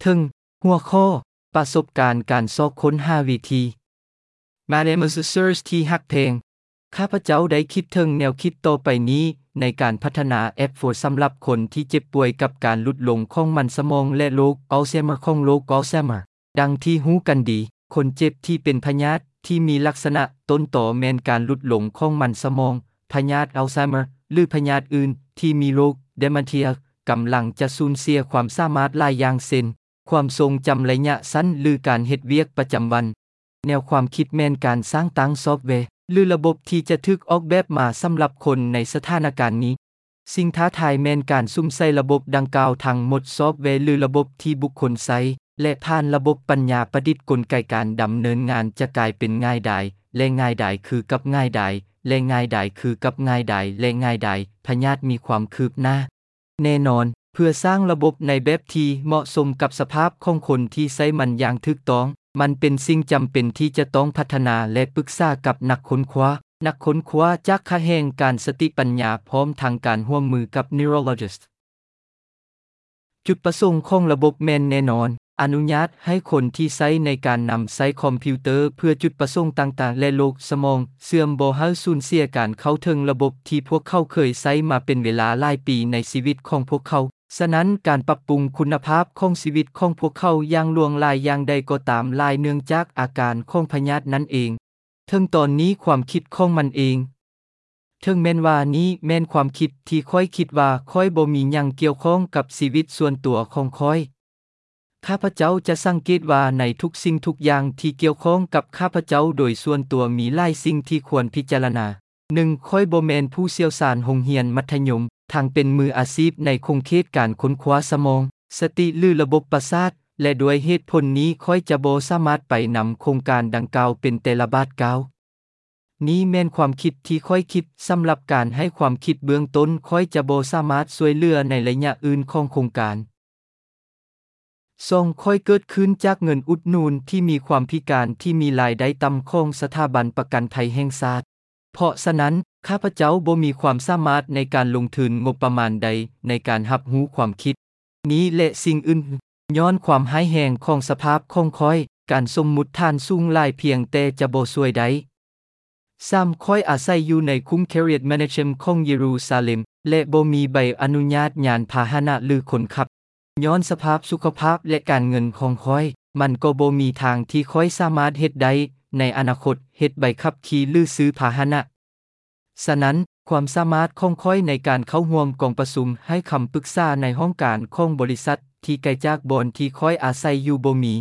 ເທິງຫົວຂໍ້ ປະສົບການການຊອກຄົ້ນຫາວິທີ. My name is Search ທີ່ຮັກແພງ. ຂ້າພະເຈົ້າໄດ້ຄິດເຖິງແນວຄິດຕໍ່ໄປນີ້ໃນການພັດທະນາແອັບໂຟສຳລັບຄົນທີ່ເຈັບປ່ວຍກັບການຫຼຸດລົງຂອງມັນສະໝອງ ແລະ ໂລກອັລໄຊເມີ ຂອງໂລກອັລໄຊເມີ. ດັ່ງທີ່ຮູ້ກັນດີ, ຄົນເຈັບທີ່ເປັນພະຍາດທີ່ມີລັກສະນະຕົ້ນຕໍແມ່ນການຫຼຸດລົງຂອງມັນສະໝອງ, ພະຍາດອັລໄຊເມີ ຫຼື ພະຍາດອື່ນທີ່ມີໂລກເດເມັນເທຍ ກຳລັງຈະສູນເສຍຄວາມສາມາດຫຼາຍຢ່າງ ເຊັ່ນ ຄວາມຊົງຈຳໄລຍະສັ້ນ ຫຼື ການເຮັດວຽກປະຈຳວັນ. ແນວຄວາມຄິດແມ່ນການສ້າງຕັ້ງຊອບແວ ຫຼື ລະບົບທີ່ຈະຖືກອອກແບບມາສຳລັບຄົນໃນສະຖານະການນີ້. ສິ່ງທ້າທາຍແມ່ນການສຸມໃສ່ລະບົບດັ່ງກ່າວທັງໝົດ, ຊອບແວ ຫຼື ລະບົບທີ່ບຸກຄົນໃຊ້ ແລະ ຜ່ານລະບົບປັນຍາປະດິດ, ກົນໄກການດຳເນີນງານຈະກາຍເປັນງ່າຍດາຍ ແລະ ງ່າຍດາຍຄືກັບງ່າຍດາຍ ແລະ ງ່າຍດາຍຄືກັບງ່າຍດາຍ ແລະ ງ່າຍດາຍ. ພະຍາດມີຄວາມຄືບໜ້າ. ແນ່ນອນ, ເພື່ອສ້າງລະບົບໃນແບບທີ່ເໝາະສົມກັບສະພາບຂອງຄົນທີ່ໃຊ້ມັນຢ່າງຖືກຕ້ອງ, ມັນເປັນສິ່ງຈຳເປັນທີ່ຈະຕ້ອງພັດທະນາ ແລະ ປຶກສາກັບນັກຄົ້ນຄວ້າ, ນັກຄົ້ນຄວ້າຈາກຂະແໜງການສະຕິປັນຍາ ພ້ອມທັງການຮ່ວມມືກັບ neurologist. ຈຸດປະສົງຂອງລະບົບແມ່ນແນ່ນອນ, ອະນຸຍາດໃຫ້ຄົນທີ່ໃຊ້ໃນການນຳໃຊ້ຄອມພິວເຕີເພື່ອຈຸດປະສົງຕ່າງໆ ແລະ ໂລກສະໝອງເສື່ອມບໍ່ໃຫ້ສູນເສຍການເຂົ້າເຖິງລະບົບທີ່ພວກເຂົາເຄີຍໃຊ້ມາເປັນເວລາຫຼາຍປີໃນຊີວິດຂອງພວກເຂົາ. ສະນັ້ນ, ການປັບປຸງຄຸນນະພາບຂອງຊີວິດຂອງພວກເຂົາຢ່າງຫຼວງຫຼາຍຢ່າງໃດກໍຕາມ, ຫຼາຍເນື່ອງຈາກອາການຂອງພະຍາດນັ້ນເອງ. ເຖິງຕອນນີ້ຄວາມຄິດຂອງມັນເອງ, ເຖິງແມ່ນວ່ານີ້ແມ່ນຄວາມຄິດທີ່ຂ້ອຍຄິດວ່າຂ້ອຍບໍ່ມີຫຍັງກ່ຽວຂ້ອງກັບຊີວິດສ່ວນຕົວຂອງຂ້ອຍ. ຂ້າພະເຈົ້າຈະສັງເກດວ່າໃນທຸກສິ່ງທຸກຢ່າງທີ່ກ່ຽວຂ້ອງກັບຂ້າພະເຈົ້າໂດຍສ່ວນຕົວມີຫຼາຍສິ່ງທີ່ຄວນພິຈາລະນາ. ໜຶ່ງ, ຂ້ອຍບໍ່ແມ່ນຜູ້ຊ່ຽວຊານໂຮງຮຽນມັດທະຍົມ, ທັງເປັນມືອາຊີບໃນຂົງເຂດການຄົ້ນຄວ້າສະໝອງ, ສະຕິ ຫຼື ລະບົບປະສາດ, ແລະ ດ້ວຍເຫດຜົນນີ້ຂ້ອຍຈະບໍ່ສາມາດໄປນຳໂຄງການດັ່ງກ່າວເປັນແຕ່ລະບາດກ້າວ. ນີ້ແມ່ນຄວາມຄິດທີ່ຂ້ອຍຄິດ. ສຳລັບການໃຫ້ຄວາມຄິດເບື້ອງຕົ້ນ, ຂ້ອຍຈະບໍ່ສາມາດຊ່ວຍເຫຼືອໃນໄລຍະອື່ນຂອງໂຄງການ. ສອງ, ຂ້ອຍເກີດຂຶ້ນຈາກເງິນອຸດໜູນທີ່ມີຄວາມພິການທີ່ມີລາຍໄດ້ຕ່ຳຂອງສະຖາບັນປະກັນໄພແຫ່ງຊາດ. ເພາະສະນັ້ນ, ຂ້າພະເຈົ້າບໍ່ມີຄວາມສາມາດໃນການລົງທຶນງົບປະມານໃດໃນການຮັບຮູ້ຄວາມຄິດນີ້ ແລະ ສິ່ງອື່ນ. ຍ້ອນຄວາມຮ້າຍແຮງຂອງສະພາບຂອງຂ້ອຍ, ການສົມມຸດຖານສູງຫຼາຍພຽງແຕ່ຈະບໍ່ຊ່ວຍໄດ້. ສາມ, ຂ້ອຍອາໄສຢູ່ໃນຄຸ້ມ Kiryat Menachem ຂອງເຢຣູຊາເລັມ ແລະ ບໍ່ມີໃບອະນຸຍາດຍານພາຫະນະ ຫຼື ຄົນຂັບ. ຍ້ອນສະພາບສຸຂະພາບ ແລະ ການເງິນຂອງຂ້ອຍ, ມັນກໍບໍ່ມີທາງທີ່ຂ້ອຍສາມາດເຮັດໄດ້ໃນອະນາຄົດ, ເຮັດໃບຂັບຂີ່ ຫຼື ຊື້ພາຫະນະ. ສະນັ້ນ, ຄວາມສາມາດຂອງຂ້ອຍໃນການເຂົ້າຮ່ວມກອງປະຊຸມ, ໃຫ້ຄຳປຶກສາໃນຫ້ອງການຂອງບໍລິສັດທີ່ໄກຈາກບ່ອນທີ່ຂ້ອຍອາໄສຢູ່ບໍ່ມີ.